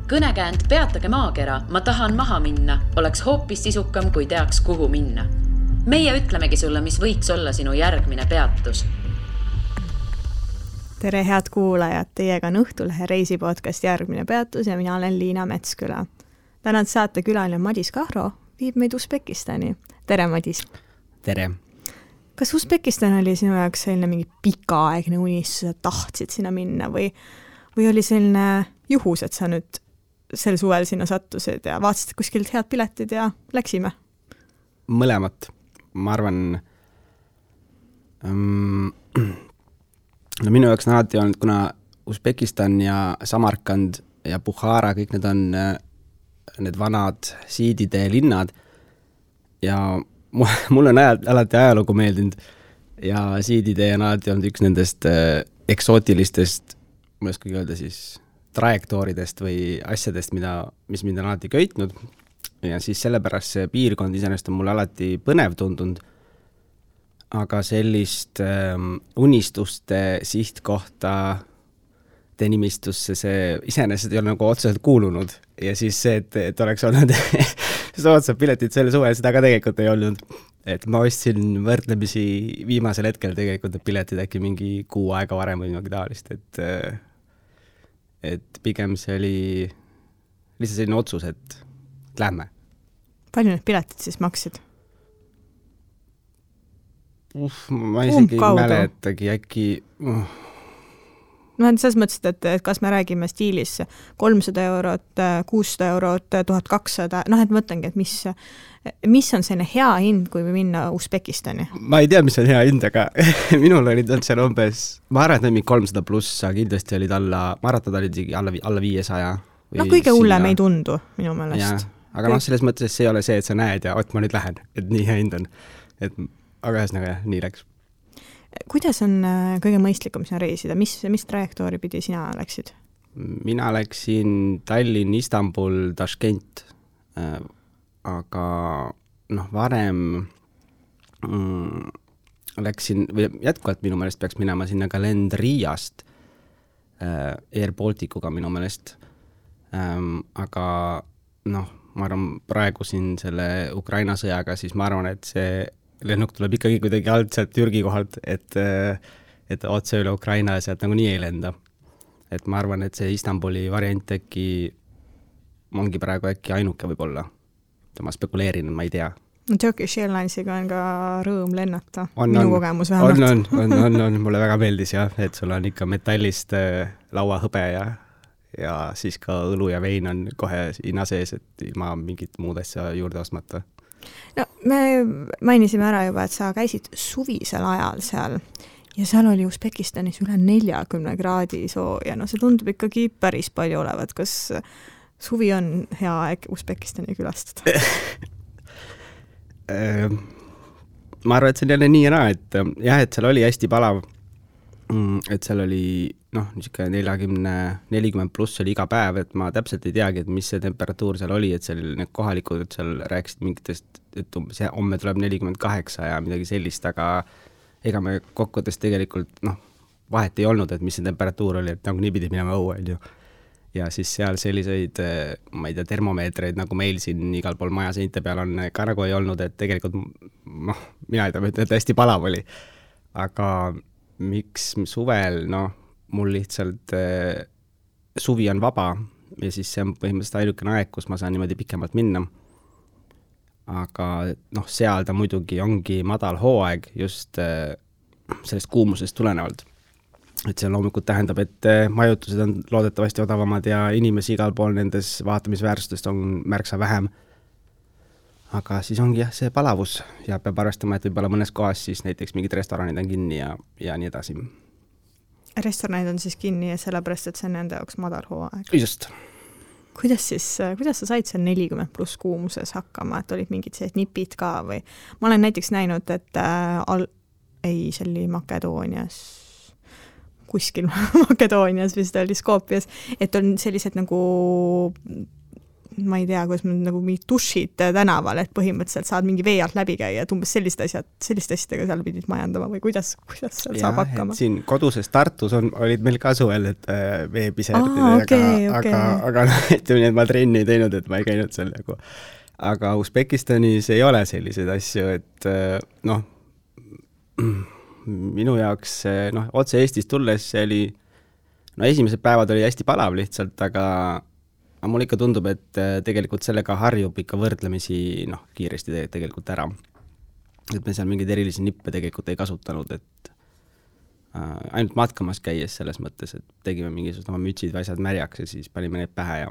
Kõnekäänd peatage maakera, ma tahan maha minna, oleks hoopis sisukam, kui teaks, kuhu minna. Meie ütlemegi sulle, mis võiks olla sinu järgmine peatus. Tere head kuulajad, teiega on Õhtulehe reisipodcast Järgmine peatus ja mina olen Liina Metsküla. Tänad saate külaline Madis Kahro viib meid Usbekistani. Tere Madis! Tere! Kas Usbekistan oli sinu jaoks selline mingi pikaaegne unistus, et tahtsid sinna minna või oli selline juhus, et sa nüüd sel suvel sinna sattusid ja vaatasid kuskilt head piletid ja läksime? Mõlemat. Ma arvan, minu jaoks on alati olnud, kuna Usbekistan ja Samarkand ja Bukhara, kõik need on need vanad siidide linnad ja mul on alati ajalugu meeldinud ja siidide on alati olnud üks nendest eksootilistest, ma ei oskagi öelda siis, trajektooridest või asjadest, mis mind on alati köitnud ja siis sellepärast see piirkond iseenesest on mulle alati põnev tundunud, aga sellist unistuste sihtkohta nimistusse see iseenesest ei ole nagu otseselt kuulunud ja siis see, et oleks olnud soodsad piletid selle suvel, seda ka tegelikult ei olnud. Et ma ostsin võrdlemisi viimasel hetkel tegelikult piletid äkki mingi kuu aega varem või midagi taolist, et pigem see oli lihtsalt selline otsus, et lähme. Palju need piletid siis maksid? Ma isegi mäletagi äkki... No selles mõttes, et kas me räägime stiilis 300 eurot, 600 eurot, 1200, et mõtlengi, et mis on selline hea hind, kui minna Usbekistani? Ma ei tea, mis on hea hind, aga minul olid seal umbes, ma arvan, et mingi 300 pluss, aga kindlasti olid maratad olid alla 500. No kõige hullem ei tundu minu meelest. Aga selles mõttes see ei ole see, et sa näed ja ma nüüd lähen, et nii hea hind on. Aga ühesõnaga, nii läks. Kuidas on kõige mõistlikum sinna reisida? Mis trajektoori pidi sina läksid? Mina läksin Tallinn, Istanbul, Tashkent, aga varem läksin, või jätkuvalt minu meelest peaks minema sinna kalendriiast Air Balticuga minu meelest, aga ma arvan, praegu siin selle Ukraina sõjaga, siis ma arvan, et see lennuk tuleb ikkagi kuidagi alt sealt Türgi kohalt, et otse üle Ukraina sealt nagu nii ei lenda. Et ma arvan, et see Istanbuli variant äkki ongi praegu äkki ainuke võib-olla. Ma spekuleerin, ma ei tea. Turkish Airlinesiga on ka rõõm lennata. Minu kogemus vähemalt. On. Mulle väga meeldis jah, et sul on ikka metallist lauahõbe ja siis ka õlu ja vein on kohe hinna sees, et ilma mingit muud asja juurde ostmata. No, me mainisime ära juba, et sa käisid suvisel ajal seal ja seal oli Usbekistanis üle 40 kraadi sooja. See tundub ikkagi päris palju olevat. Kas suvi on hea aeg Usbekistani külastada? Ma arvan, et see on jälle nii ja naa, et seal oli hästi palav, et seal oli 40 pluss oli iga päev, et ma täpselt ei teagi, et mis see temperatuur seal oli, et seal need kohalikud seal rääkisid mingitest, et homme tuleb 48 ja midagi sellist, aga ega me kokkuvõttes tegelikult vahet ei olnud, et mis see temperatuur oli, et nagu nii pidi minema õue, ja siis seal selliseid, ma ei tea, termomeetreid, nagu meil siin igal pool maja seinte peal on, ka nagu ei olnud, et tegelikult mina ei tea, et hästi palav oli, aga miks suvel, mul lihtsalt suvi on vaba ja siis see on põhimõtteliselt ainukene aeg, kus ma saan niimoodi pikemalt minna. Aga seal ta muidugi ongi madal hooaeg just sellest kuumusest tulenevalt. Et see loomulikult tähendab, et majutused on loodetavasti odavamad ja inimesi igal pool nendes vaatamisväärsustest on märksa vähem. Aga siis ongi jah see palavus ja peab arvestama, et võib-olla mõnes kohas siis näiteks mingid restoranid on kinni ja nii edasi. Restoranid on siis kinni ja sellepärast, et see on nende jaoks madal hooaeg. Just. Kuidas sa said seal 40 pluss kuumuses hakkama, et olid mingid sellised nipid ka või? Ma olen näiteks näinud, et see oli Makedoonias, kuskil Makedoonias vist oli Skopjas, et on sellised nagu ma ei tea, kuidas nagu mingid dušid tänaval, et põhimõtteliselt saad mingi vee alt läbi käia, et umbes selliste asjadega seal pidid majandama või kuidas seal saab hakkama? Siin koduses Tartus olid meil ka suvel, et veepiserdid, aga ütleme nii, et ma trenni ei teinud, et ma ei käinud seal nagu. Aga Usbekistanis ei ole selliseid asju, et minu jaoks otse Eestis tulles see oli, esimesed päevad oli hästi palav lihtsalt, aga mul ikka tundub, et tegelikult sellega harjub ikka võrdlemisi kiiresti tegelikult ära. Et me seal mingeid erilisi nippe tegelikult ei kasutanud, et ainult matkamas käies selles mõttes, et tegime mingisugused oma mütsid või asjad märjaks ja siis panime need pähe ja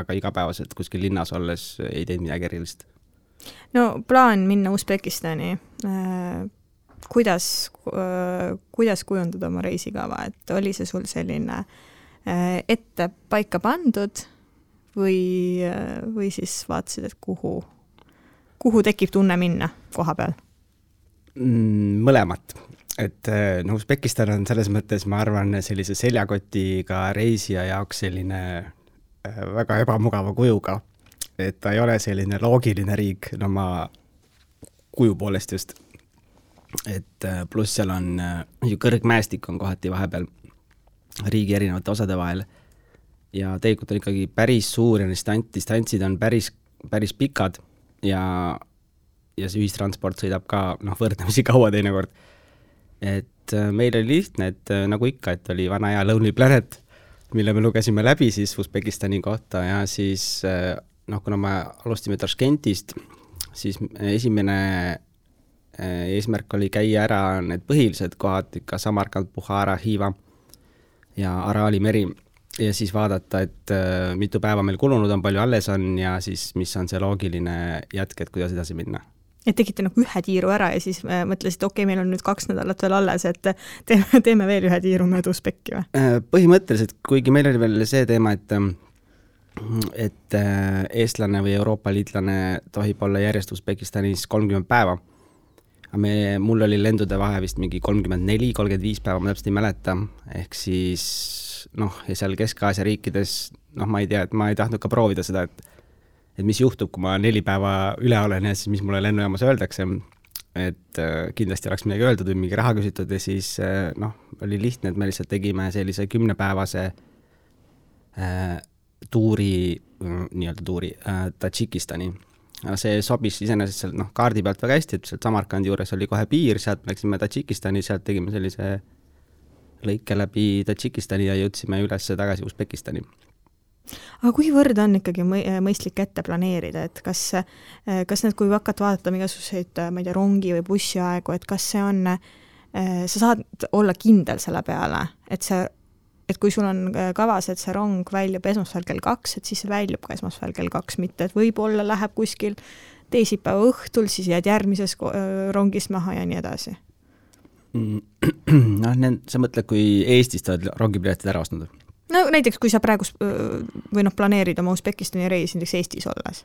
aga igapäevaselt kuskil linnas olles ei teinud midagi erilist. No plaan minna Usbekistani, kuidas kujundada oma reisikava, et oli see sul selline ette paika pandud või siis vaatasid, et kuhu tekib tunne minna koha peal? Mõlemat. Et Usbekistan on selles mõttes, ma arvan, sellise seljakotiga reisija jaoks selline väga ebamugava kujuga. Et ta ei ole selline loogiline riik, ma kuju poolest just. Et pluss seal on ju kõrgmäestik on kohati vahepeal riigi erinevate osade vahel ja tegelikult on ikkagi päris suur ja distantsid on päris pikad ja see ühistransport sõidab ka võrdlemisi kaua teinekord. Et meil oli lihtne, et nagu ikka, et oli vana hea Lonely Planet, mille me lugesime läbi siis Usbekistani kohta ja siis kuna me alustime Taškentist, siis esimene eesmärk oli käia ära need põhilised kohad, ikka Samarkand, Bukhara, Hiiva ja Araali meri ja siis vaadata, et mitu päeva meil kulunud on, palju alles on ja siis mis on see loogiline jätk, et kuidas edasi minna. Et tegite ühe tiiru ära ja siis mõtlesid, okei, meil on nüüd 2 nädalat veel alles, et teeme veel ühe tiiru mööda Usbeki või? Põhimõtteliselt, kuigi meil oli veel see teema, et eestlane või Euroopa liitlane tohib olla järjest Usbekistanis 30 päeva. Mul oli lendude vahe vist mingi 34-35 päeva, ma täpselt ei mäleta, ehk siis ja seal Kesk-Aasia riikides, ma ei tea, et ma ei tahtnud ka proovida seda, et mis juhtub, kui ma 4 päeva üle olen ja siis mis mulle lennujaamas öeldakse, et kindlasti oleks midagi öeldud või mingi raha küsitud ja siis oli lihtne, et me lihtsalt tegime sellise 10-päevase tuuri Tadžikistani. See sobis iseenesest sealt kaardi pealt väga hästi, et sealt Samarkandi juures oli kohe piir, sealt läksime Tadžikistani, sealt tegime sellise lõike läbi Tadžikistani ja jõudsime üles tagasi Usbekistani. Aga kuivõrd on ikkagi mõistlik ette planeerida, et kas need, kui hakata vaatama igasuguseid, ma ei tea, rongi või bussi aegu, et kas see on, sa saad olla kindel selle peale, et kui sul on kavas, et see rong väljub esmaspäeval kell 2, et siis see väljub ka esmaspäeval kell 2, mitte et võib-olla läheb kuskil teisipäeva õhtul, siis jääd järgmises rongis maha ja nii edasi. Sa mõtled, kui Eestist oled rongipiletid ära ostnud? No näiteks, kui sa praegu või planeerid oma Usbekistani reisi näiteks Eestis olles.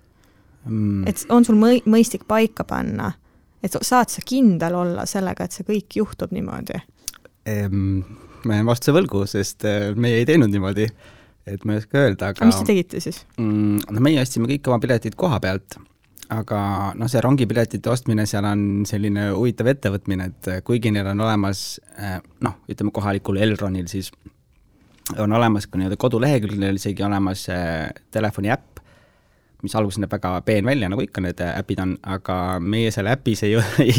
Et on sul mõistlik paika panna, et saad sa kindel olla sellega, et see kõik juhtub niimoodi? Ma jään vastuse võlgu, sest meie ei teinud niimoodi, et ma ei oska öelda. Aga mis te tegite siis? Meie ostsime kõik oma piletid koha pealt, aga see rongipiletite ostmine seal on selline huvitav ettevõtmine, et kuigi neil on olemas, ütleme kohalikul Elronil siis on olemas ka kodulehekülgil isegi olemas telefoni äpp, mis alguses näeb väga peen välja, nagu ikka need äpid on, aga meie selle äpis ei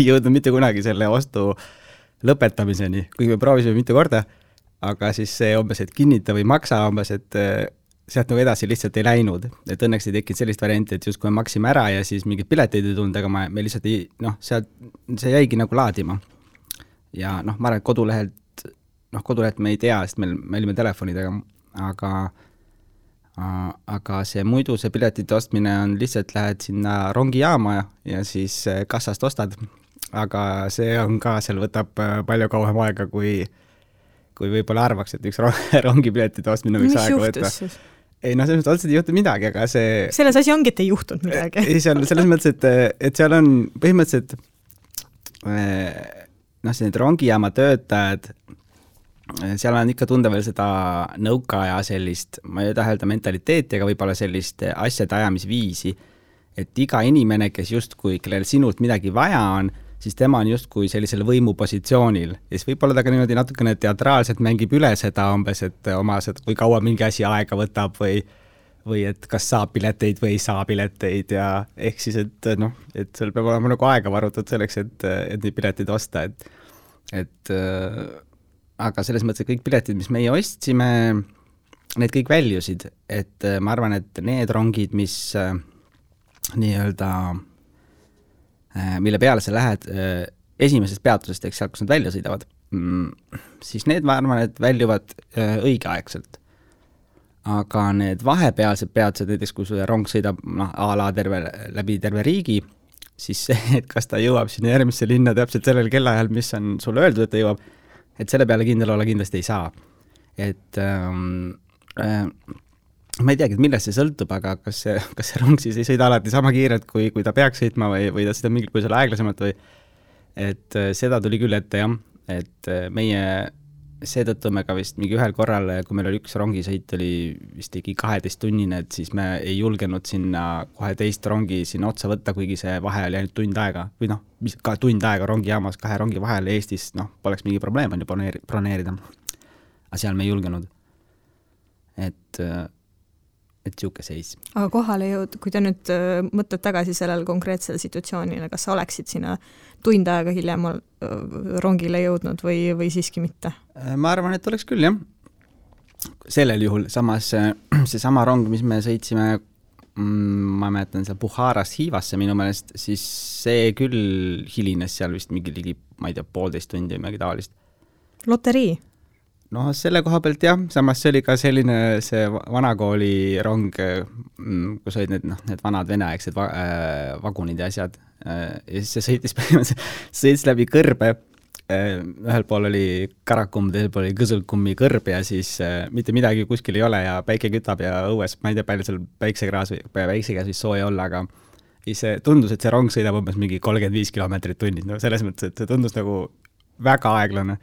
jõudnud mitte kunagi selle ostu lõpetamiseni, kuigi me proovisime mitu korda, aga siis see umbes, et kinnita või maksa umbes, et sealt edasi lihtsalt ei läinud, et õnneks ei tekkinud sellist varianti, et just kui me maksime ära ja siis mingid pileteid ei tulnud, aga me lihtsalt ei, sealt see jäigi nagu laadima. Ja ma arvan, et kodulehelt me ei tea, sest me olime telefonidega, aga see muidu see piletite ostmine on lihtsalt lähed sinna rongijaama ja siis kassast ostad, aga see on ka, seal võtab palju kauem aega, kui võib-olla arvaks, et üks rongipiletite ostmine võiks aega võtta. Mis juhtus siis? Ei, selles mõttes otseselt ei juhtu midagi, aga see... Selles asi ongi, et ei juhtunud midagi. Ei, selles mõttes, et seal on põhimõtteliselt need rongijaama töötajad seal on ikka tunda veel seda nõukaaja sellist, ma ei taha öelda mentaliteeti, aga võib-olla sellist asjade ajamisviisi, et iga inimene, kes justkui, kellel sinult midagi vaja on, siis tema on justkui sellisel võimupositsioonil. Ja siis võib-olla ta ka niimoodi natukene teatraalselt mängib üle seda umbes, et oma seda, kui kaua mingi asi aega võtab või et kas saab pileteid või ei saa pileteid ja ehk siis, et noh, et seal peab olema nagu aega varutud selleks, et neid pileteid osta, et aga selles mõttes, et kõik piletid, mis meie ostsime, need kõik väljusid, et ma arvan, et need rongid, mis nii-öelda, mille peale sa lähed esimesest peatusest, eks sealt, kus nad välja sõidavad, siis need, ma arvan, et väljuvad õigeaegselt. Aga need vahepealsed peatused, näiteks kui sulle rong sõidab a la läbi terve riigi, siis see, et kas ta jõuab sinna järgmisse linna täpselt sellel kellaajal, mis on sulle öeldud, et ta jõuab, et selle peale kindel olla kindlasti ei saa. Et ma ei teagi, et millest see sõltub, aga kas see rong siis ei sõida alati sama kiirelt, kui ta peaks sõitma või ta sõidab mingil põhjusel aeglasemalt või et seda tuli küll ette jah, et meie seetõttu me ka vist mingi ühel korral, kui meil oli üks rongisõit, oli vist ligi 12-tunnine, et siis me ei julgenud sinna kohe teist rongi sinna otsa võtta, kuigi see vahe oli ainult tund aega või noh, ka tund aega rongijaamas 2 rongi vahel Eestis, noh, poleks mingi probleem on ju broneerida. Aga seal me ei julgenud. Et siuke seis. Aga kohale jõud, kui te nüüd mõtled tagasi sellel konkreetsel situatsioonile, kas sa oleksid sinna tund aega hiljem rongile jõudnud või siiski mitte? Ma arvan, et oleks küll, jah. Sellel juhul, samas see sama rong, mis me sõitsime, ma mäletan seal Bukharast Hiivasse minu meelest, siis see küll hilines seal vist mingi ligi, ma ei tea, 1,5 tundi või midagi taolist. Loterii? No selle koha pealt jah, samas see oli ka selline see vanakooli rong, kus olid need vanad veneaegsed vagunid ja asjad. Ja siis see sõitis läbi kõrbe. Ühel pool oli Karakum, teisel pool oli Kõsulkummi kõrb ja siis mitte midagi kuskil ei ole ja päike kütab ja õues, ma ei tea, palju seal päiksekäes või sooja olla, aga see tundus, et see rong sõidab umbes mingi 35 kilomeetrit tunnis. No selles mõttes, et see tundus nagu väga aeglane.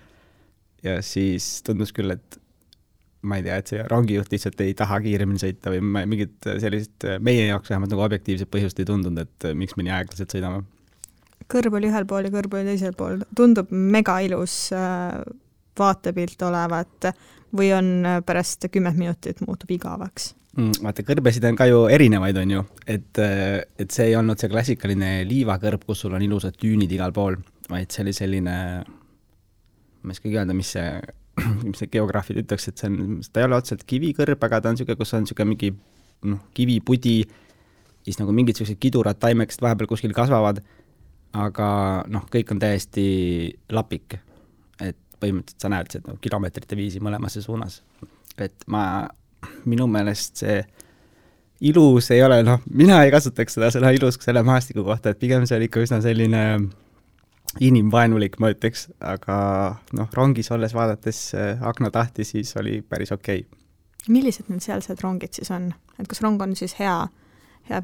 Ja siis tundus küll, et ma ei tea, et see rongijuht lihtsalt ei taha kiiremini sõita või mingit sellist meie jaoks vähemalt nagu objektiivset põhjust ei tundunud, et miks me nii aeglaselt sõidame. Kõrb oli ühel pool ja kõrb oli teisel pool. Tundub mega ilus vaatepilt olevat või on pärast 10 minutit muutub igavaks? Vaata, kõrbesid on ka ju erinevaid, on ju, et see ei olnud see klassikaline liivakõrb, kus sul on ilusad tüünid igal pool, vaid see oli selline, ma ei oskagi öelda, mis see geograafid ütleks, et ta ei ole otseselt kivikõrb, aga ta on siuke, kus on siuke mingi kivipudi, siis nagu mingid siuksed kidurad taimekesed vahepeal kuskil kasvavad, aga kõik on täiesti lapik, et põhimõtteliselt sa näed seda kilomeetrite viisi mõlemasse suunas. Et minu meelest see ilus ei ole, mina ei kasutaks seda ilus selle maastiku kohta, et pigem see oli ikka üsna selline inimvaenulik, ma ütleks, aga rongis olles vaadates aknatahti, siis oli päris okei. Millised need sealsed rongid siis on? Et kas rong on siis hea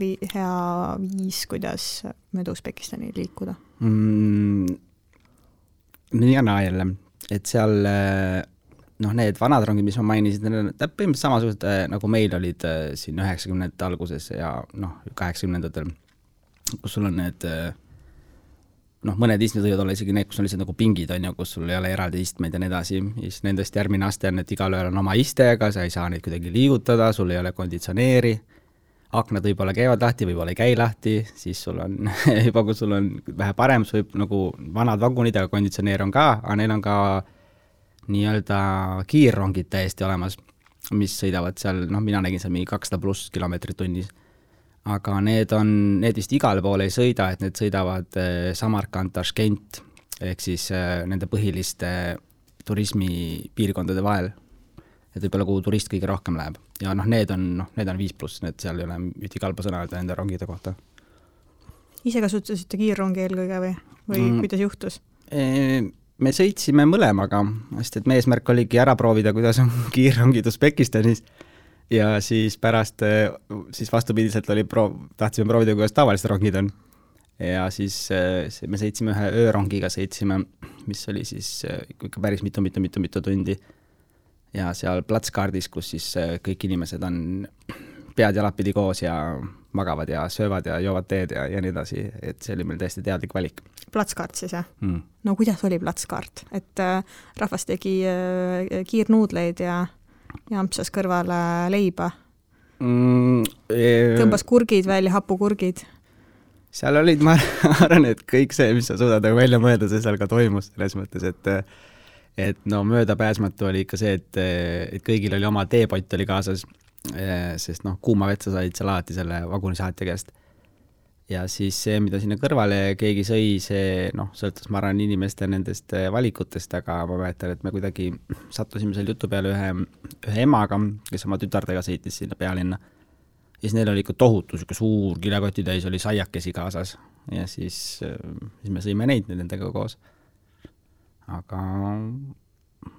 viis, kuidas mööda Usbekistani liikuda? Nii ja naa jälle, et seal need vanad rongid, mis ma mainisin, need on põhimõtteliselt samasugused, nagu meil olid siin 90-ndate alguses ja 80-ndatel, kus sul on need mõned istmed võivad olla isegi need, kus on lihtsalt nagu pingid, on ju, kus sul ei ole eraldi istmeid ja nii edasi. Siis nendest järgmine aste on, et igal ühel on oma iste, aga sa ei saa neid kuidagi liigutada, sul ei ole konditsioneeri, aknad võib-olla käivad lahti, võib-olla ei käi lahti, siis sul on juba, kui sul on vähe parem, sul võib nagu vanad vagunid, aga konditsioneer on ka, aga neil on ka nii-öelda kiirrongid täiesti olemas, mis sõidavad seal, mina nägin seal mingi 200+ kilomeetrit tunnis. Aga need vist igale poole ei sõida, et need sõidavad Samarkand, Tashkent, ehk siis nende põhiliste turismipiirkondade vahel. Et võib-olla kuhu turist kõige rohkem läheb. Ja need on 5+, need seal ei ole üti kalba sõna öelda nende rongide kohta. Ise kasutasite kiirrongi eelkõige või kuidas juhtus? Me sõitsime mõlemaga, sest et meie eesmärk oligi ära proovida, kuidas on kiirrongid Usbekistanis. Ja siis pärast, siis vastupidiselt tahtsime proovida, kuidas tavalised rongid on. Ja siis me sõitsime ühe öörongiga, mis oli siis ikka päris mitu tundi. ja seal platskaardis, kus siis kõik inimesed on pead jalapidi koos ja magavad ja söövad ja joovad teed ja nii edasi, et see oli meil täiesti teadlik valik. Platskaart siis, jah? No kuidas oli platskaart? Et rahvas tegi kiirnuudleid ja ampsas kõrvale leiba? Tõmbas kurgid välja, hapukurgid? Seal olid, ma arvan, et kõik see, mis sa suudad välja mõelda, see seal ka toimus selles mõttes, et no möödapääsmatu oli ikka see, et kõigil oli oma teepott oli kaasas, sest noh, kuuma vetsa said seal alati selle vagunisaatja käest. Ja siis see, mida sinna kõrvale keegi sõi, see noh, sõltus ma arvan inimeste nendest valikutest, aga ma mäletan, et me kuidagi sattusime seal jutu peale ühe emaga, kes oma tütardega sõitis sinna pealinna. Ja siis neil oli ikka tohutu, suur kilekotitäis oli saiakesi kaasas ja siis me sõime neid nendega koos. Aga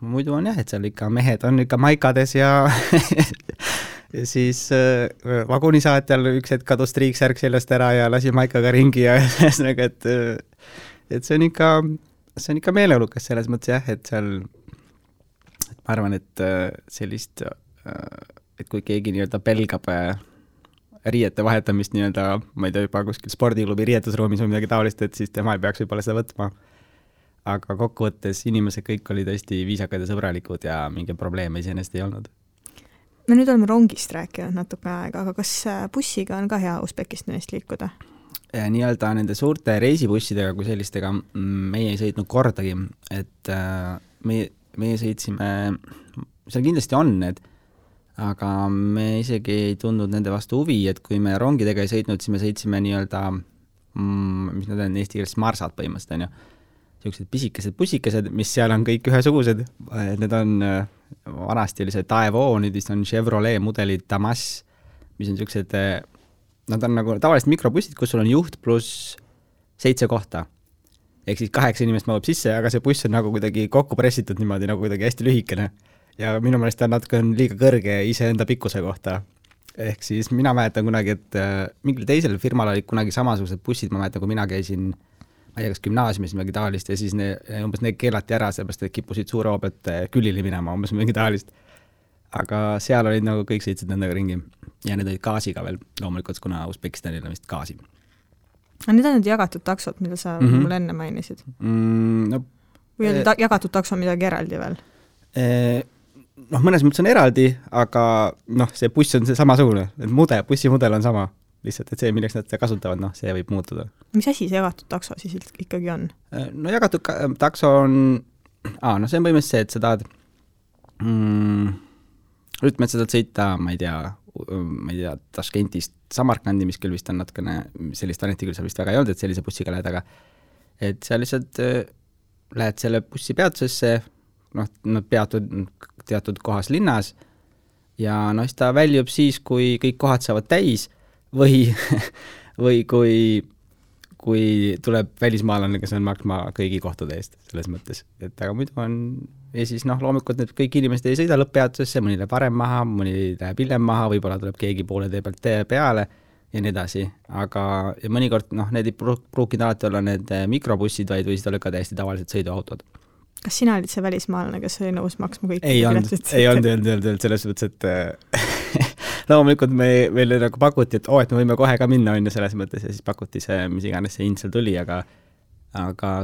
muidu on jah, et seal ikka mehed on ikka maikades ja ja siis vagunisaatjal üks hetk kadus triiksärk sellest ära ja lasi maikaga ringi ja et see on ikka meeleolukas selles mõttes jah, et seal ma arvan, et sellist, et kui keegi nii-öelda pelgab riiete vahetamist nii-öelda, ma ei tea, juba kuskil spordiklubi riietusruumis või midagi taolist, et siis tema ei peaks võib-olla seda võtma. Aga kokkuvõttes inimesed kõik olid hästi viisakad ja sõbralikud ja mingi probleeme iseenesest ei olnud. Me nüüd oleme rongist rääkinud natuke aega, aga kas bussiga on ka hea Usbekistanist liikuda? Nii-öelda nende suurte reisibussidega kui sellistega meie ei sõitnud kordagi, et meie sõitsime, seal kindlasti on need, aga me isegi ei tundnud nende vastu huvi, et kui me rongidega ei sõitnud, siis me sõitsime nii-öelda, mis nad on eesti keeles marsad põhimõtteliselt, on ju. Sellised pisikesed bussikesed, mis seal on kõik ühesugused. Need on vanasti oli see Daewoo, nüüd on Chevrolet mudelid Damas, mis on sellised, nad on nagu tavaliselt mikrobussid, kus sul on juht pluss 7 kohta. Ehk siis 8 inimest mahub sisse, aga see buss on nagu kuidagi kokku pressitud niimoodi, nagu kuidagi hästi lühikene. Ja minu meelest on natuke liiga kõrge iseenda pikkuse kohta. Ehk siis mina mäletan kunagi, et mingil teisel firmal olid kunagi samasugused bussid, ma mäletan, kui mina käisin ma ei tea, kas gümnaasiumis midagi taolist ja siis umbes need keelati ära, sellepärast et kippusid suure hoopet külili minema, umbes mingi taolist. Aga seal olid nagu kõik sõitsid nendega ringi ja need olid gaasiga veel loomulikult, kuna Usbekistanil on vist gaasi. Need on need jagatud taksod, mida sa mulle enne mainisid? No, või oli jagatud takso midagi eraldi veel? Noh, mõnes mõttes on eraldi, aga noh, see buss on see samasugune, bussimudel on sama. Lihtsalt, et see, milleks nad seda kasutavad, noh, see võib muutuda. Mis asi see jagatud takso siis ikkagi on? No jagatud takso on, no see on põhimõtteliselt see, et sa tahad, ütleme, et sa tahad sõita, ma ei tea, Taškentist Samarkandi, mis küll vist on natukene, sellist aneti küll seal vist väga ei olnud, et sellise bussiga lähed, aga et sa lihtsalt lähed selle bussi peatusesse, noh, nad peatud teatud kohas linnas ja noh, siis ta väljub siis, kui kõik kohad saavad täis või kui tuleb välismaalane, kes on maksma kõigi kohtade eest selles mõttes, et aga muidu on ja siis noh, loomulikult need kõik inimesed ei sõida lõpppeatusesse, mõni läheb varem maha, mõni läheb hiljem maha, võib-olla tuleb keegi poole tee pealt peale ja nii edasi, aga ja mõnikord noh, need ei pruukinud alati olla need mikrobussid, vaid võisid olla ka täiesti tavalised sõiduautod. Kas sina olid see välismaalane, kes oli nõus maksma kõik? Ei olnud selles mõttes, et loomulikult meile nagu pakuti, et me võime kohe ka minna õnne selles mõttes ja siis pakuti see, mis iganes see hind seal tuli, aga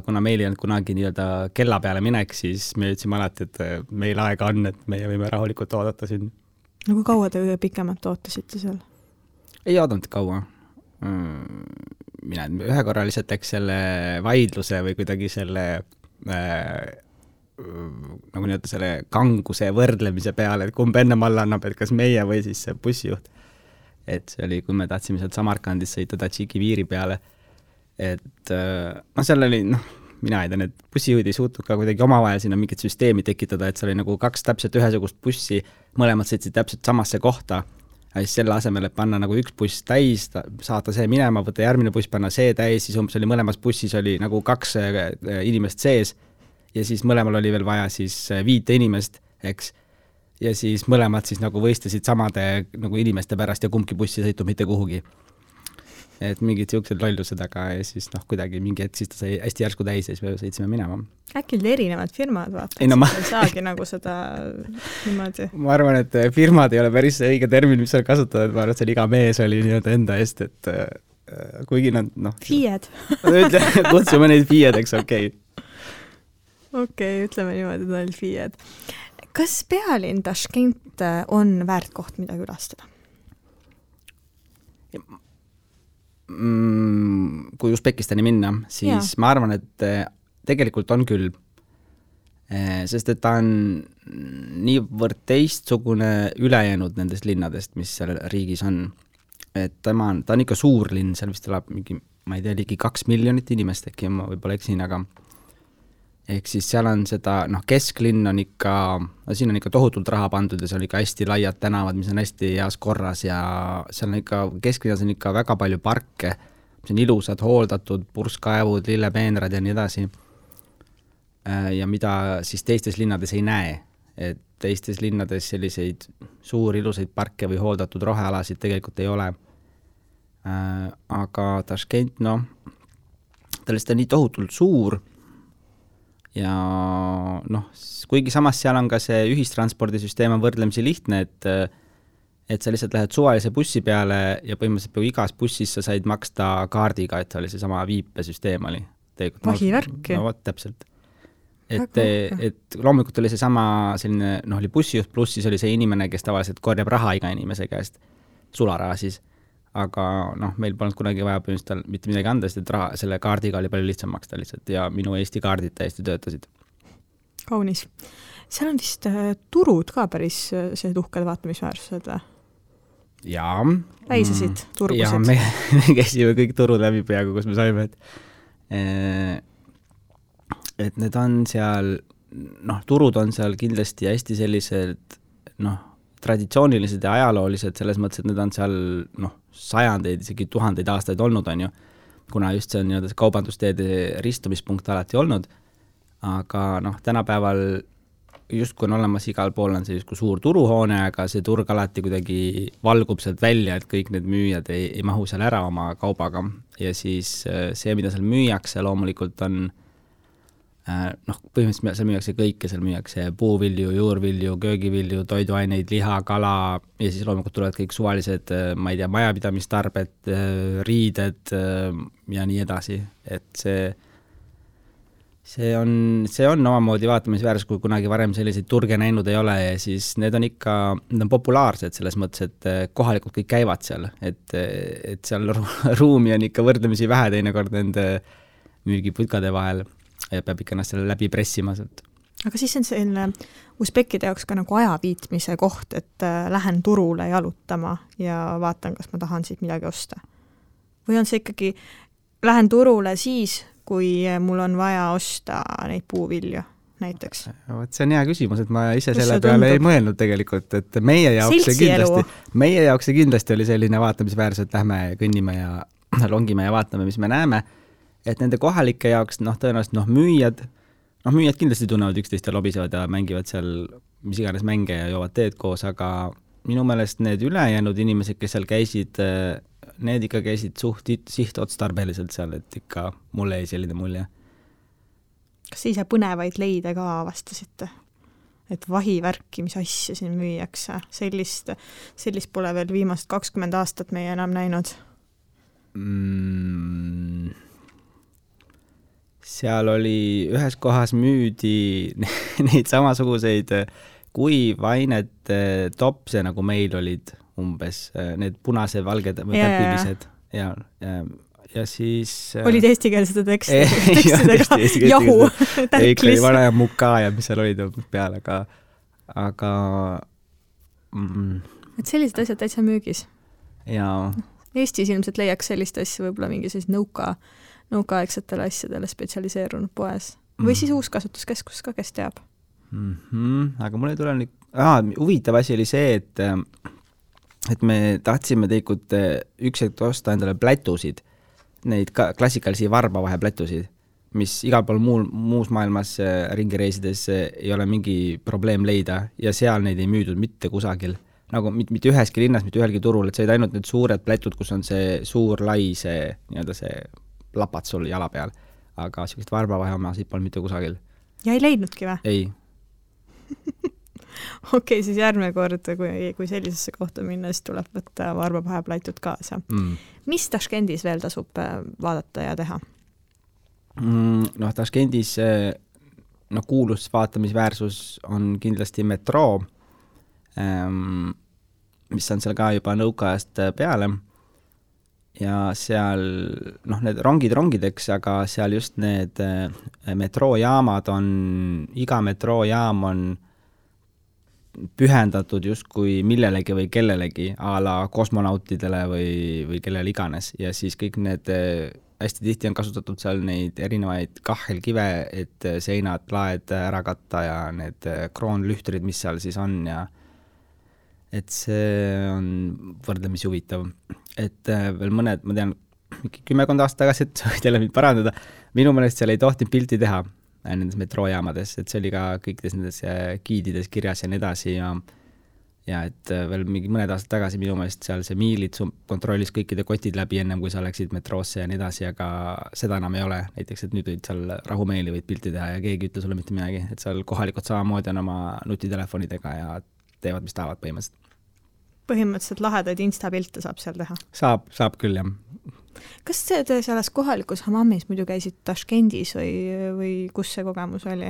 kuna meil ei olnud kunagi nii-öelda kella peale minek, siis me ütlesime alati, et meil aega on, et meie võime rahulikult oodata siin. No kui kaua te pikemalt ootasite seal? Ei oodanud kaua. Mina ühe korra lihtsalt läks selle vaidluse või kuidagi selle nagu nii-öelda selle kanguse võrdlemise peale, et kumb enne alla annab, et kas meie või siis see bussijuht. Et see oli, kui me tahtsime sealt Samarkandis sõita Tadžiki piiri peale, et seal oli, mina ei tea, need bussijuhid ei suutnud ka kuidagi omavahel sinna mingit süsteemi tekitada, et seal oli nagu 2 täpselt ühesugust bussi, mõlemad sõitsid täpselt samasse kohta, ja siis selle asemel, et panna nagu üks buss täis, saata see minema, võtta järgmine buss, panna see täis, siis umbes oli mõlemas bussis oli nagu 2 inimest sees, ja siis mõlemal oli veel vaja siis 5 inimest, eks, ja siis mõlemad siis nagu võistlesid samade nagu inimeste pärast ja kumbki bussi sõitu mitte kuhugi. et mingid siuksed lollused, aga ja siis kuidagi mingi hetk siis ta sai hästi järsku täis ja siis me sõitsime minema. Äkki olid erinevad firmad, vaata, ei saagi nagu seda niimoodi. Ma arvan, et firmad ei ole päris õige termin, mis seal kasutada, et ma arvan, et seal iga mees oli nii-öelda enda eest, et kuigi nad FIE-d. Kutsume neid FIE-deks, okei. Okei, ütleme niimoodi, et nad olid FIE-d. Kas pealinn Taškent on väärt koht, mida külastada? Kui Usbekistani minna, siis ma arvan, et tegelikult on küll, sest et ta on niivõrd teistsugune ülejäänud nendest linnadest, mis seal riigis on. Et ta on ikka suur linn, seal vist elab mingi, ma ei tea, ligi 2 miljonit inimest äkki, ma võib-olla eksin, aga ehk siis seal on seda, kesklinn on ikka, siin on ikka tohutult raha pandud ja seal on ikka hästi laiad tänavad, mis on hästi heas korras ja seal on ikka, kesklinnas on ikka väga palju parke, mis on ilusad, hooldatud, purskkaevud, lillepeenrad ja nii edasi. Ja mida siis teistes linnades ei näe, et teistes linnades selliseid suuri ilusaid parke või hooldatud rohealasid tegelikult ei ole. Aga Taškent, ta lihtsalt on nii tohutult suur, ja kuigi samas seal on ka see ühistranspordisüsteem on võrdlemisi lihtne, et sa lihtsalt lähed suvalise bussi peale ja põhimõtteliselt peaaegu igas bussis sa said maksta kaardiga, et oli see sama viipesüsteem oli. Vahivärki. Täpselt. Et loomulikult oli see sama selline, oli bussijuht pluss siis oli see inimene, kes tavaliselt korjab raha iga inimese käest, sularaha siis. Aga meil polnud kunagi vaja põhimõtteliselt mitte midagi anda, sest et selle kaardiga oli palju lihtsam maksta lihtsalt ja minu Eesti kaardid täiesti töötasid. Kaunis. Seal on vist turud ka päris sellised uhked vaatamisväärsused või? Jaa. Väisesid turgusid? Jaa, me käisime kõik turud läbi peaaegu, kus me saime, et need on seal, turud on seal kindlasti hästi sellised, traditsioonilised ja ajaloolised selles mõttes, et need on seal sajandeid, isegi 1000 aastaid olnud on ju, kuna just see on see kaubandusteede ristumispunkt alati olnud, aga tänapäeval justkui on olemas igal pool on see justkui suur turuhoone, aga see turg alati kuidagi valgub sealt välja, et kõik need müüjad ei mahu seal ära oma kaubaga ja siis see, mida seal müüakse, loomulikult on põhimõtteliselt seal müüakse kõike, seal müüakse puuvilju, juurvilju, köögivilju, toiduaineid, liha, kala ja siis loomulikult tulevad kõik suvalised, ma ei tea, majapidamistarbed, riided ja nii edasi, et see on omamoodi vaatamisväärsus, kui kunagi varem selliseid turge näinud ei ole ja siis need on ikka, need on populaarsed selles mõttes, et kohalikud kõik käivad seal, et seal ruumi on ikka võrdlemisi vähe teinekord nende müügiputkade vahel ja peab ikka ennast selle läbi pressima sealt. Aga siis on selline usbekkide jaoks ka nagu ajaviitmise koht, et lähen turule jalutama ja vaatan, kas ma tahan siit midagi osta. Või on see ikkagi, lähen turule siis, kui mul on vaja osta neid puuvilju näiteks? See on hea küsimus, et ma ise selle peale ei mõelnud tegelikult, et meie jaoks see kindlasti oli selline vaatamisväärsus, et lähme kõnnime ja longime ja vaatame, mis me näeme. Et nende kohalike jaoks, tõenäoliselt müüjad kindlasti tunnevad üksteist ja lobisevad ja mängivad seal mis iganes mänge ja joovad teed koos, aga minu meelest need ülejäänud inimesed, kes seal käisid, need ikka käisid suht sihtotstarbeliselt seal, et ikka mulle ei selline mulje. Kas ise põnevaid leide ka avastasite? Et vahivärki, mis asja siin müüakse? Sellist pole veel viimast 20 aastat meie enam näinud. Seal oli ühes kohas müüdi neid samasuguseid kuivainet topse, nagu meil olid umbes, need punase valged või täpilised ja siis olid eestikeelsed tekstidega jahu kõik oli vana ja muka ja mis seal olid peal, aga et sellised asjad täitsa müügis ja Eestis ilmselt leiaks sellist asja võib-olla mingi sellist nõukaaegsetele asjadele spetsialiseerunud poes. Või siis uuskasutuskeskus ka, kes teab. Aga mul ei tule huvitav asi oli see, et me tahtsime tegelikult üks hetk osta endale plätusid, neid klassikalisi varbavahe plätusid, mis igal pool muus maailmas ringireisides ei ole mingi probleem leida ja seal neid ei müüdud mitte kusagil. nagu mitte üheski linnas, mitte ühelgi turul, et sa olid ainult need suured plätud, kus on see suur lai, see nii-öelda see lapad sul jala peal. Aga sellist varbavaheomasid polnud mitte kusagil. Ja ei leidnudki või? Ei. Okei, siis järgmine kord, kui sellisesse kohta minna, siis tuleb võtta varbavaheplätud kaasa. Mis Taškendis veel tasub vaadata ja teha? Noh, Taškendis kuulus vaatamisväärsus on kindlasti metroo, mis on seal ka juba nõukaajast peale ja seal need rongideks, aga seal just need metroojaamad on, iga metroojaam on pühendatud justkui millelegi või kellelegi a la kosmonautidele või kellele iganes ja siis kõik need hästi tihti on kasutatud seal neid erinevaid kahelkive, et seinad, laed ära katta ja need kroonlühtrid, mis seal siis on ja et see on võrdlemisi huvitav. Et veel mõned, ma tean, 10 aastat tagasi, et võid jälle mind parandada, minu meelest seal ei tohtinud pilti teha nendes metroojaamades, et see oli ka kõikides nendes giidides kirjas ja nii edasi ja et veel mingi mõned aastad tagasi minu meelest seal see miilid kontrollis kõikide kotid läbi ennem, kui sa läksid metroosse ja nii edasi, aga seda enam ei ole. Näiteks, et nüüd võid seal rahumeeli võid pilti teha ja keegi ütle sulle mitte midagi, et seal kohalikud samamoodi on oma nutitelefonidega ja teevad, mis tahavad põhimõtteliselt. Põhimõtteliselt lahedaid Insta-pilte saab seal teha? Saab küll, jah. Kas te selles kohalikus Hammamis muidu käisid Taškendis või kus see kogemus oli?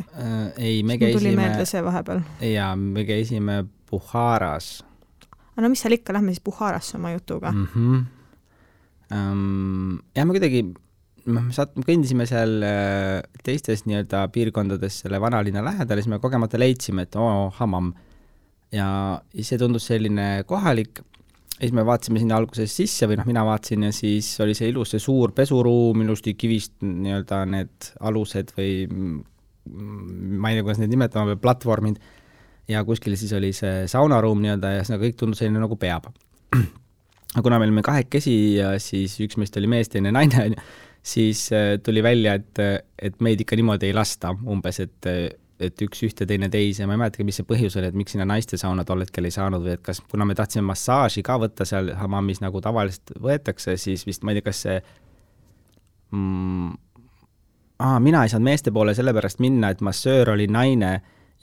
Ei, me käisime... Tuli meelde see vahepeal. Jaa, me käisime Bukharas. No mis seal ikka, lähme siis Bukharasse oma jutuga. Ja me kuidagi kõndisime seal teistes nii-öelda piirkondades selle vanalinna lähedal ja siis me kogemata leidsime, et Hammam. Ja see tundus selline kohalik. Ja siis me vaatasime sinna alguses sisse või mina vaatasin ja siis oli see ilus, see suur pesuruum, ilusti kivist nii-öelda need alused või ma ei tea, kuidas need nimetama, või platvormid ja kuskil siis oli see saunaruum nii-öelda ja see kõik tundus selline nagu peab. Aga kuna me olime 2 ja siis üks meist oli mees, teine naine, siis tuli välja, et meid ikka niimoodi ei lasta umbes, et üks ühte, teine teise, ma ei mäletagi, mis see põhjus oli, et miks sinna naiste sauna tol hetkel ei saanud või et kas, kuna me tahtsime massaaži ka võtta seal Hammamis nagu tavaliselt võetakse, siis vist ma ei tea, kas see mina ei saanud meeste poole sellepärast minna, et massöör oli naine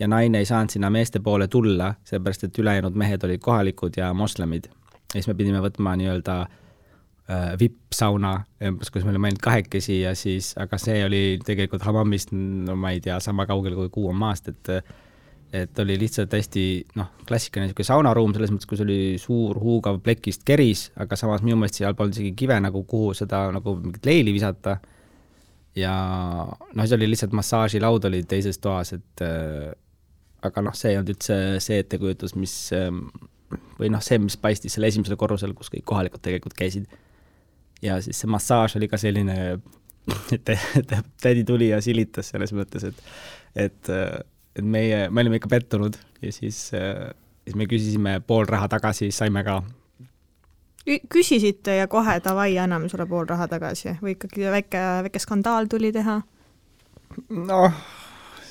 ja naine ei saanud sinna meeste poole tulla, sellepärast, et ülejäänud mehed olid kohalikud ja moslemid. Ja siis me pidime võtma nii-öelda VIP-sauna, kus me olime ainult 2 ja siis, aga see oli tegelikult Hammamist, no ma ei tea, sama kaugel kui Kuu on maast, et oli lihtsalt hästi klassikaline saunaruum, selles mõttes, kus oli suur huugav plekist keris, aga samas minu meelest seal polnud isegi kive, nagu kuhu seda nagu mingit leili visata ja see oli lihtsalt massaažilaud oli teises toas, et aga see ei olnud üldse see ettekujutus, mis või see, mis paistis selle esimesel korrusel, kus kõik kohalikud tegelikult käisid. Ja siis see massaaž oli ka selline, et tädi tuli ja silitas selles mõttes, et me olime ikka pettunud ja siis me küsisime pool raha tagasi, saime ka. Küsisite ja kohe davai, anname sulle pool raha tagasi või ikkagi väike skandaal tuli teha?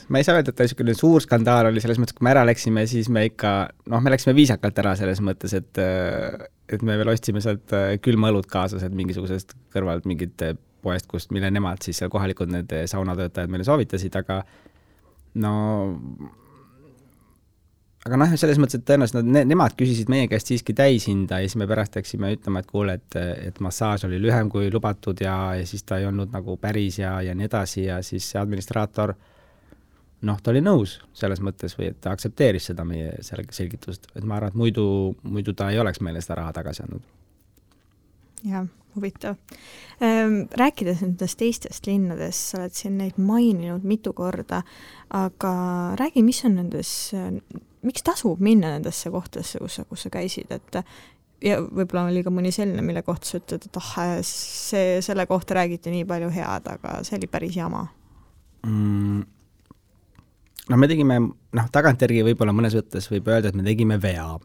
Ma ei saa öelda, et niisugune suur skandaal oli selles mõttes, kui me ära läksime, siis me ikka, me läksime viisakalt ära selles mõttes, et me veel ostsime sealt külma õlut kaasas, et mingisugusest kõrvalt mingit poest, mille nemad siis seal kohalikud need saunatöötajad meile soovitasid, aga selles mõttes, et tõenäoliselt nemad küsisid meie käest siiski täishinda ja siis me pärast läksime ütlema, et kuule, et massaaž oli lühem kui lubatud ja siis ta ei olnud nagu päris ja nii edasi ja siis see administraator ta oli nõus selles mõttes või et ta aktsepteeris seda meie selgitust, et ma arvan, et muidu ta ei oleks meile seda raha tagasi andnud. Jah, huvitav. Rääkides nendest teistest linnadest, sa oled siin neid maininud mitu korda, aga räägi, mis on miks tasub minna nendesse kohtadesse, kus sa käisid, et ja võib-olla oli ka mõni selline, mille kohta sa ütled, et selle kohta räägiti nii palju head, aga see oli päris jama. Me tegime, tagantjärgi võib-olla mõnes võttes võib öelda, et me tegime vea.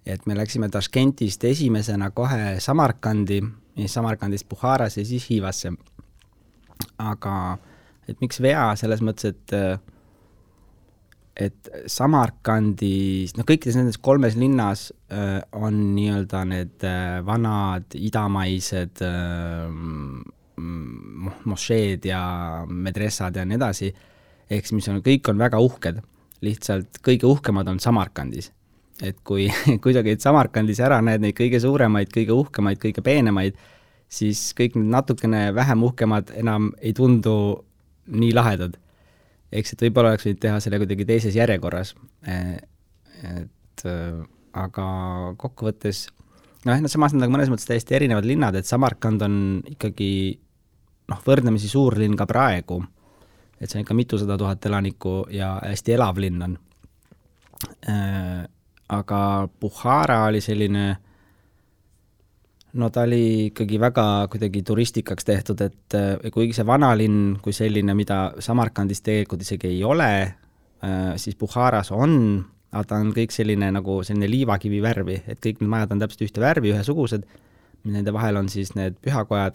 Et me läksime Taškentist esimesena kohe Samarkandi, Samarkandist Bukharas ja siis Hiivasse. Aga et miks vea selles mõttes, et et Samarkandis, kõikides nendes 3 linnas on nii-öelda need vanad idamaised mošeed ja medressad ja nii edasi, ehk mis kõik on väga uhked, lihtsalt kõige uhkemad on Samarkandis. Et kui sa käid Samarkandis ära, näed neid kõige suuremaid, kõige uhkemaid, kõige peenemaid, siis kõik need natukene vähem uhkemad enam ei tundu nii lahedad. Eks et võib-olla oleks võinud teha selle kuidagi teises järjekorras. Aga kokkuvõttes, samas nad mõnes mõttes täiesti erinevad linnad, et Samarkand on ikkagi võrdlemisi suur linn ka praegu, et see on ikka mitusada tuhat elanikku ja hästi elav linn on. Aga Bukhara oli selline, ta oli ikkagi väga kuidagi turistikaks tehtud, et kuigi see vanalinn kui selline, mida Samarkandis tegelikult isegi ei ole, siis Bukharas on, aga ta on kõik selline nagu selline liivakivi värvi, et kõik need majad on täpselt ühte värvi, ühesugused, nende vahel on siis need pühakojad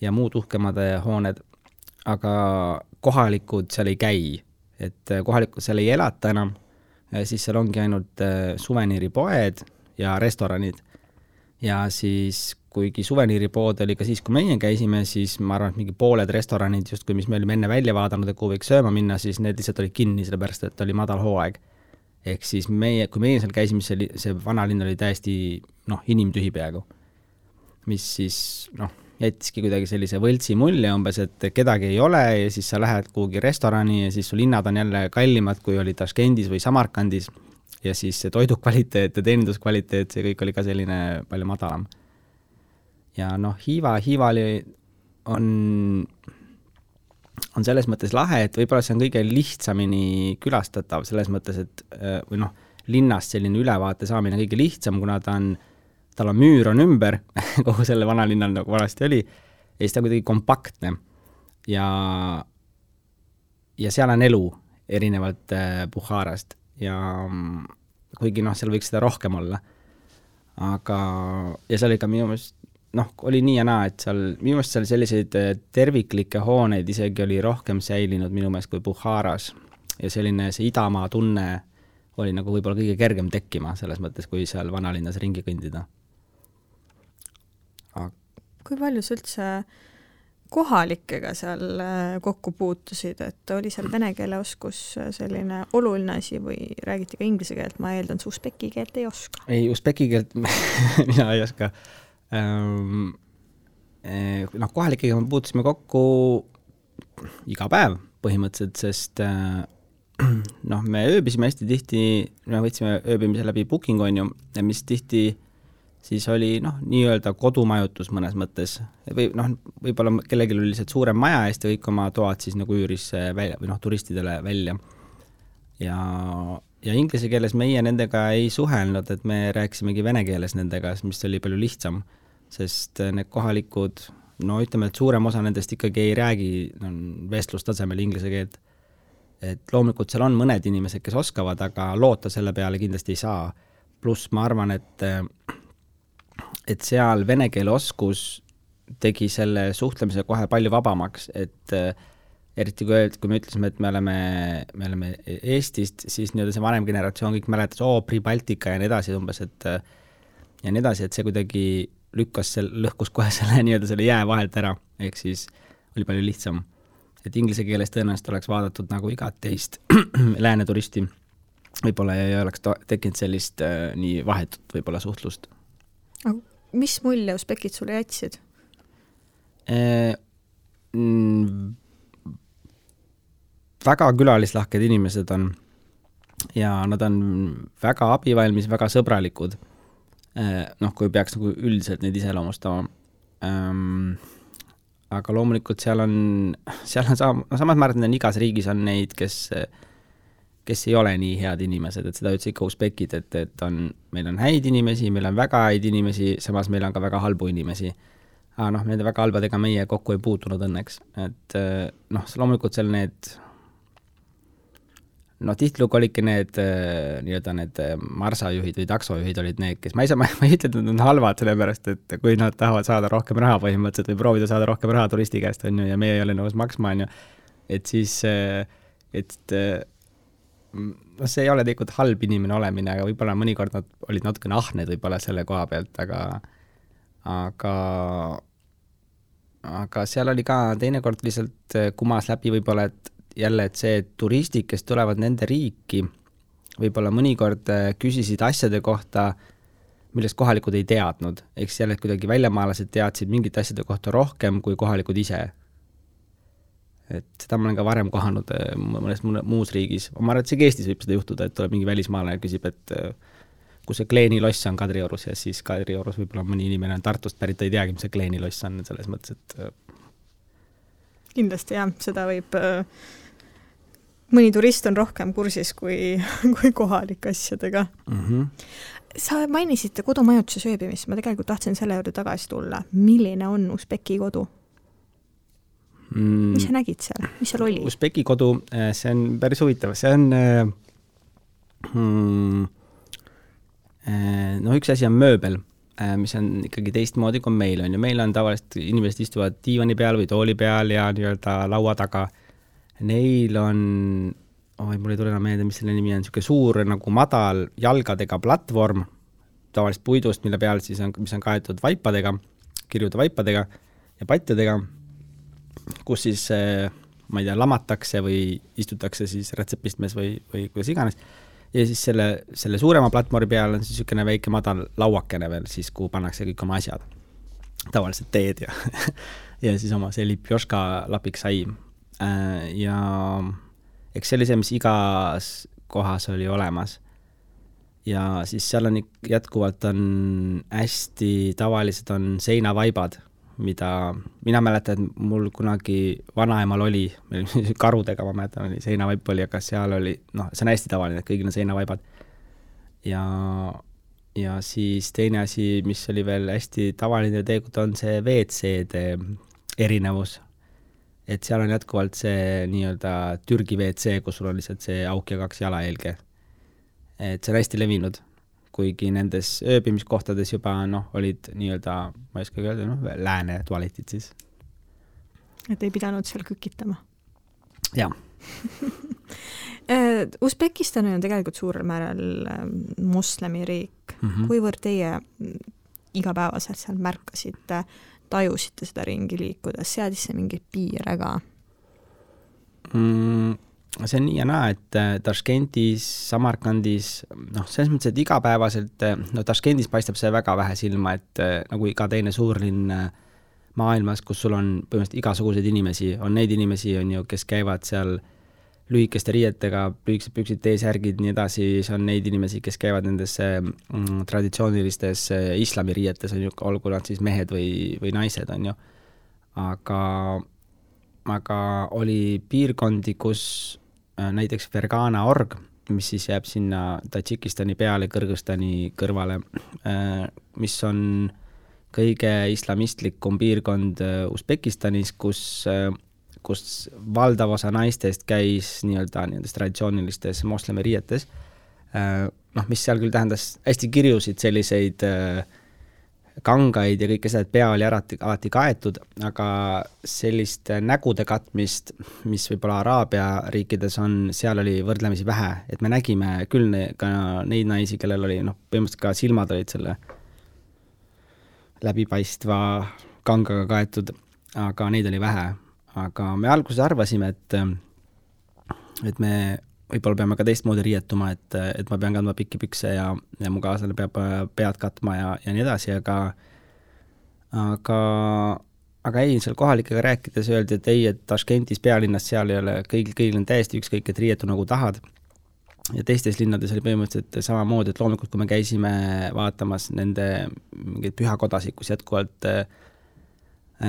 ja muud uhkemad hooned, aga kohalikud seal ei käi, et kohalikud seal ei elata enam, siis seal ongi ainult suveniiripoed ja restoranid. Ja siis, kuigi suveniiripood oli ka siis, kui meie käisime, siis ma arvan, et mingi pooled restoranid, just kui mis me olime enne välja vaadanud, et kuhu võiks sööma minna, siis need lihtsalt olid kinni, sellepärast et oli madal hooaeg. Ehk siis kui meie seal käisime, see vanalinn oli täiesti inimtühi peaaegu, mis siis jättiski kuidagi sellise võltsi mulje umbes, et kedagi ei ole ja siis sa lähed kuhugi restorani ja siis su linnad on jälle kallimad, kui oli Taškendis või Samarkandis. Ja siis see toidukvaliteet ja teeninduskvaliteet, see kõik oli ka selline palju madalam. Ja Hiiva on selles mõttes lahe, et võib-olla see on kõige lihtsamini külastatav selles mõttes, et linnast selline ülevaate saamine kõige lihtsam, kuna tal on müür on ümber, kogu selle vanalinnal nagu vanasti oli, ja siis ta on kuidagi kompaktne. Ja seal on elu erinevalt Bukharast. Ja kuigi seal võiks seda rohkem olla. Aga, ja seal oli ka minu meelest, oli nii ja naa, et minu meelest seal selliseid terviklikke hooneid isegi oli rohkem säilinud minu meelest kui Bukharas. Ja selline see idamaa tunne oli nagu võib-olla kõige kergem tekkima selles mõttes, kui seal vanalinnas ringi kõndida. Kui palju sa üldse kohalikega seal kokku puutusid, et oli seal vene keele oskus selline oluline asi või räägiti ka inglise keelt, ma eeldan, su usbeki keelt ei oska? Ei, usbeki keelt mina ei oska. Kohalikega me puutusime kokku iga päev põhimõtteliselt, sest me ööbisime hästi tihti, me võtsime ööbimise läbi Booking on ju, mis tihti siis oli nii-öelda kodumajutus mõnes mõttes. Või võib-olla kellelgi oli lihtsalt suurem maja ja kõik oma toad siis nagu üüris välja, või turistidele välja. Ja inglise keeles meie nendega ei suhelnud, et me rääkisimegi vene keeles nendega, mis oli palju lihtsam, sest need kohalikud, ütleme, et suurem osa nendest ikkagi ei räägi vestlustasemel inglise keelt. Et loomulikult seal on mõned inimesed, kes oskavad, aga loota selle peale kindlasti ei saa. Pluss ma arvan, et seal vene keele oskus tegi selle suhtlemise kohe palju vabamaks, et eriti kui me ütlesime, et me oleme Eestist, siis see vanem generatsioon kõik mäletas, Pribaltika ja nii edasi umbes, et see kuidagi lõhkus kohe selle jää vahelt ära, ehk siis oli palju lihtsam. Et inglise keeles tõenäoliselt oleks vaadatud nagu igat teist lääne turisti, võib-olla ei oleks tekkinud sellist nii vahetut võib-olla suhtlust. Mis mulje usbekid sulle jätsid? Väga külalislahked inimesed on ja nad on väga abivalmis, väga sõbralikud. Kui peaks nagu üldiselt neid iseloomustama. Aga loomulikult seal on samas ma arvan, et igas riigis on neid, kes ei ole nii head inimesed, et seda ütles ikka usbekid, et meil on häid inimesi, meil on väga häid inimesi, samas meil on ka väga halbu inimesi. Aga nende väga halbadega meie kokku ei puutunud õnneks. Et loomulikult seal need tihtilugu olidki need marsajuhid või taksojuhid olid need, kes ma ei ütle, et nad on halvad sellepärast, et kui nad tahavad saada rohkem raha põhimõtteliselt või proovida saada rohkem raha turisti käest on ju, ja meie ei ole nõus maksma on ju, et siis no see ei ole tegelikult halb inimene olemine, aga võib-olla mõnikord nad olid natukene ahned võib-olla selle koha pealt, aga seal oli ka teinekord lihtsalt kumas läbi võib-olla, et jälle, et see turistid, kes tulevad nende riiki, võib-olla mõnikord küsisid asjade kohta, millest kohalikud ei teadnud. Eks jälle kuidagi väljamaalased teadsid mingite asjade kohta rohkem kui kohalikud ise. Et seda ma olen ka varem kohanud mõnes muus riigis. Ma arvan, et see Eestis võib seda juhtuda, et tuleb mingi välismaalane ja küsib, et kui see Kleeni loss on Kadriorus ja siis Kadriorus võib-olla mõni inimene on Tartust pärit, ta ei teagi, mis see Kleeni loss on selles mõttes, et kindlasti jah, seda võib mõni turist on rohkem kursis kui kohalik asjadega. Sa mainisid kodumajutuse sööbimist, ma tegelikult tahtsin selle juurde tagasi tulla. Milline on Usbeki kodu? Mis sa nägid seal? Mis seal oli? Usbeki kodu, see on päris huvitav. See on no üks asi on mööbel, mis on ikkagi teistmoodi kui meil on. Ja meil on tavaliselt inimesed istuvad diivani peal või tooli peal ja nii-öelda laua taga. Neil on, mul ei tule enam meelde, mis selle nimi on, niisugune suur nagu madal jalgadega platvorm, tavaliselt puidust, mille peal siis on, mis on kaetud vaipadega, kirjude vaipadega ja patjadega, kus siis, ma ei tea, lamatakse või istutakse siis retsepistmes või kuidas iganes. Ja siis selle suurema platvormi peal on siis niisugune väike madal lauakene veel, siis kuhu pannakse kõik oma asjad. Tavaliselt teed ja siis oma see lipjoška lapik sai. Ja eks see oli see, mis igas kohas oli olemas. Ja siis seal on jätkuvalt on hästi tavalised on seinavaibad, mida mina mäletan, et mul kunagi vanaemal oli, karudega ma mäletan, oli seinavaip oli, aga seal oli, see on hästi tavaline, et kõigil on seinavaibad. Ja siis teine asi, mis oli veel hästi tavaline tegelikult on see WC-de erinevus. Et seal on jätkuvalt see nii-öelda Türgi WC, kus sul on lihtsalt see auk ja 2 jalahelge. Et see on hästi levinud, kuigi nendes ööbimiskohtades juba olid nii-öelda, ma ei oska öelda, lääne tualetid siis. Et ei pidanud seal kükitama? Jah. Usbekistan on tegelikult suurel määral moslemi riik. Kuivõrd teie igapäevaselt seal märkasite, tajusite seda ringi liikuda, seadis see mingeid piire ka? See on nii ja naa, et Taškentis, Samarkandis, selles mõttes, et igapäevaselt, Taškentis paistab see väga vähe silma, et nagu iga teine suurlinn maailmas, kus sul on põhimõtteliselt igasuguseid inimesi, on neid inimesi, on ju, kes käivad seal lühikeste riietega, lühikesed püksid, T-särgid, nii edasi, see on neid inimesi, kes käivad nendes traditsioonilistes islamiriietes, on ju, olgu nad siis mehed või naised, on ju. Aga oli piirkondi, kus näiteks Fergana org, mis siis jääb sinna Tadžikistani peale, Kõrgõzstani kõrvale, mis on kõige islamistlikum piirkond Usbekistanis, kus valdav osa naistest käis nii-öelda nendes traditsioonilistes moslemi riietes, mis seal küll tähendas hästi kirjusid selliseid kangaid ja kõike seda, et pea oli alati kaetud, aga sellist nägude katmist, mis võib-olla Araabia riikides on, seal oli võrdlemisi vähe, et me nägime küll ka neid naisi, kellel oli, põhimõtteliselt ka silmad olid selle läbipaistva kangaga kaetud, aga neid oli vähe. Aga me alguses arvasime, et me võib-olla peame ka teistmoodi riietuma, et ma pean kandma pikki pükse ja mu kaaslane peab pead katma ja nii edasi, aga ei, seal kohalikega rääkides öeldi, et ei, et Taškentis pealinnas seal ei ole, kõigil on täiesti ükskõik, et riietu nagu tahad. Ja teistes linnades oli põhimõtteliselt samamoodi, et loomulikult, kui me käisime vaatamas nende mingeid pühakodasid, kus jätkuvalt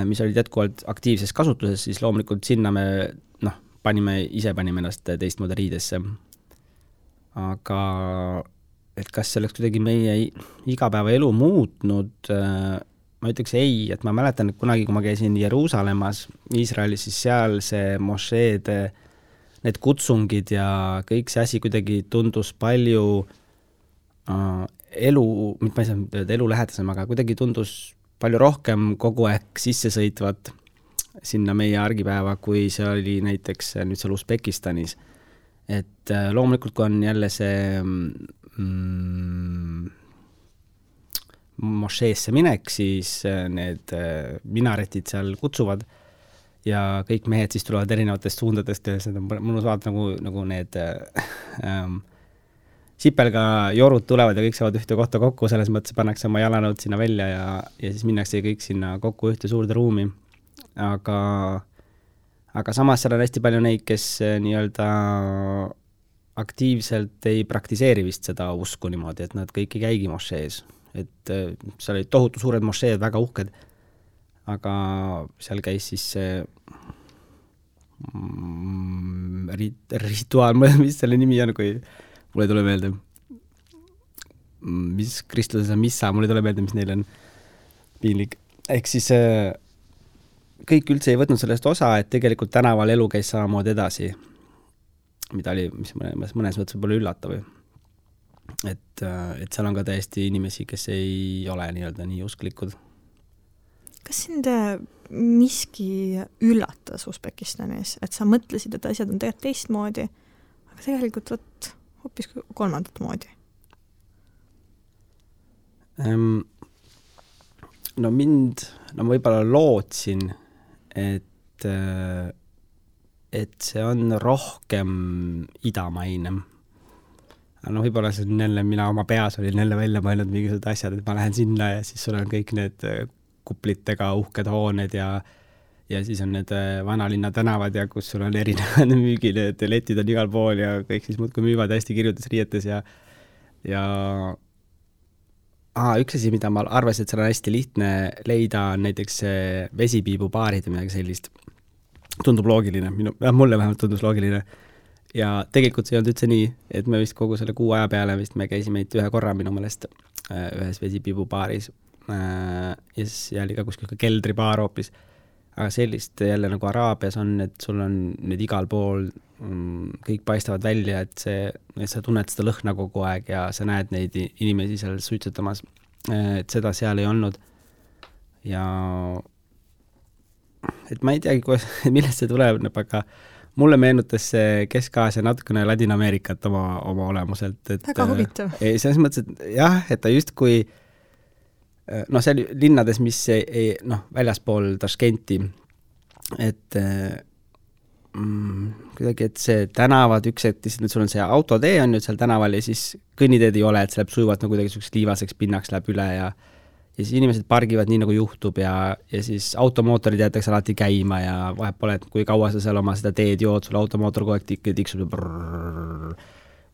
mis olid jätkuvalt aktiivses kasutuses, siis loomulikult sinna me panime ennast teistmoodi riidesse. Aga et kas see oleks kuidagi meie igapäeva elu muutnud, ma ütleks ei, et ma mäletan, et kunagi, kui ma käisin Jeruusalemmas, Iisraelis, siis seal see mošeed, need kutsungid ja kõik see asi kuidagi tundus palju mitte ma ei saa öelda elu lähedasem, aga kuidagi tundus palju rohkem kogu aeg sisse sõitvat sinna meie argipäeva, kui see oli näiteks nüüd seal Usbekistanis. et loomulikult, kui on jälle see mošeesse minek, siis need minaretid seal kutsuvad ja kõik mehed siis tulevad erinevatest suundadest ja seda on mõnus vaadata nagu need sipelga jorud tulevad ja kõik saavad ühte kohta kokku, selles mõttes pannakse oma jalanõud sinna välja ja siis minnakse kõik sinna kokku ühte suurde ruumi. Aga samas seal on hästi palju neid, kes nii-öelda aktiivselt ei praktiseeri vist seda usku niimoodi, et nad kõik ei käigi mošees. Et seal olid tohutu suured mošeed, väga uhked, aga seal käis siis rituaal, mis selle nimi on, kui mulle ei tule meelde, mis kristluses on missa, mulle ei tule meelde, mis neil on piinlik. Ehk siis kõik üldse ei võtnud sellest osa, et tegelikult tänaval elu käis samamoodi edasi, mida oli, mis mõnes mõttes võib-olla üllatav. Et seal on ka täiesti inimesi, kes ei ole nii-öelda nii usklikud. Kas sind miski üllatas Usbekistanis, et sa mõtlesid, et asjad on tegelikult teistmoodi, aga tegelikult hoopis kolmandat moodi? No ma võib-olla lootsin, et see on rohkem idamaine. No võib-olla see on jälle, mina oma peas olin jälle välja mõelnud mingisugused asjad, et ma lähen sinna ja siis sul on kõik need kuplitega uhked hooned ja siis on need vanalinna tänavad ja kus sul on erinevad müügid, et letid on igal pool ja kõik siis muudkui müüvad hästi kirjutas riietes ja üks asi, mida ma arvasin, et seal on hästi lihtne leida, on näiteks vesipiibupaarid või midagi sellist. Tundub loogiline, mulle vähemalt tundus loogiline. Ja tegelikult see ei olnud üldse nii, et me vist kogu selle 6 aja peale vist me käisime ühe korra minu mõelest ühes vesipiibupaaris ja siis jälle ka kuskil keldripaar hoopis. Aga sellist jälle nagu Araabias on, et sul on nüüd igal pool kõik paistavad välja, et sa tunned seda lõhna kogu aeg ja sa näed neid inimesi seal suitsetamas, et seda seal ei olnud. Ja et ma ei teagi, millest see tuleb, aga mulle meenutas see Kesk-Aasia natukene Ladina-Ameerikat oma olemuselt. Väga huvitav. Selles mõttes, et jah, et ta justkui seal linnades, mis väljaspool Taškenti, et kuidagi, et see tänavad üks hetk, sul on see autotee on nüüd seal tänaval ja siis kõnniteed ei ole, et see läheb sujuvalt nagu kuidagi liivaseks pinnaks läheb üle ja siis inimesed pargivad nii nagu juhtub ja siis automootorid jäetakse alati käima ja vahet pole, et kui kaua sa seal oma seda teed jood, sul automootor kogu aeg tiksub.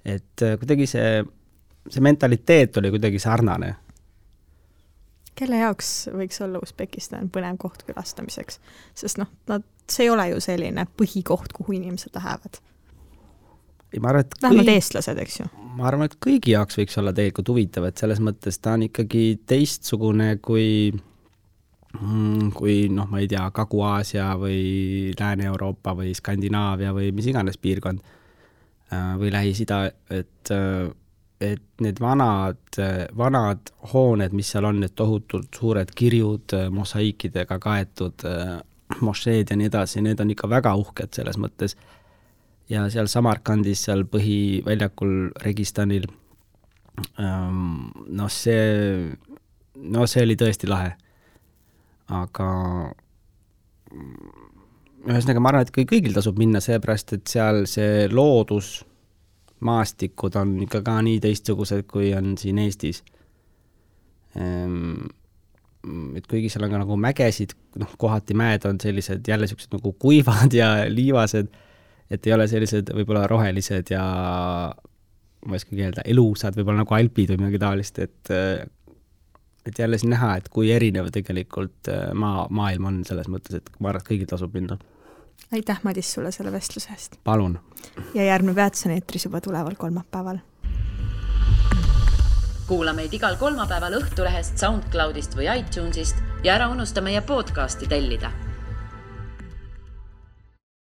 Et kuidagi see mentaliteet oli kuidagi sarnane. Kelle jaoks võiks olla Usbekistan põnev koht külastamiseks? Sest see ei ole ju selline põhikoht, kuhu inimesed lähevad. Vähemalt eestlased, eks ju? Ma arvan, et kõigi jaoks võiks olla tegelikult huvitav, et selles mõttes ta on ikkagi teistsugune kui ma ei tea, Kagu-Aasia või Lääne-Euroopa või Skandinaavia või mis iganes piirkond või Lähis-Ida, et need vanad hooned, mis seal on, need tohutult suured kirjud, mosaikidega kaetud mošeed ja nii edasi, need on ikka väga uhked selles mõttes. Ja seal Samarkandis, seal põhiväljakul Registanil, see oli tõesti lahe. Aga ühesõnaga ma arvan, et kõigil tasub minna seepärast, et seal see loodus, maastikud on ikka ka nii teistsugused, kui on siin Eestis. Et kuigi seal on ka nagu mägesid, kohati mäed on sellised jälle sellised nagu kuivad ja liivased, et ei ole sellised võib-olla rohelised ja ma ei oska keelda, elusad, võib-olla nagu alpid või midagi taolist, et jälle siin näha, et kui erinev tegelikult maailm on selles mõttes, et ma arvan, et kõigil tasub minna. Aitäh, Madis, sulle selle vestluse eest. Palun. Ja järgmine Väetson eetris juba tuleval kolmapäeval. Kuula meid igal kolmapäeval Õhtulehest, SoundCloudist või iTunesist ja ära unusta meie podcasti tellida.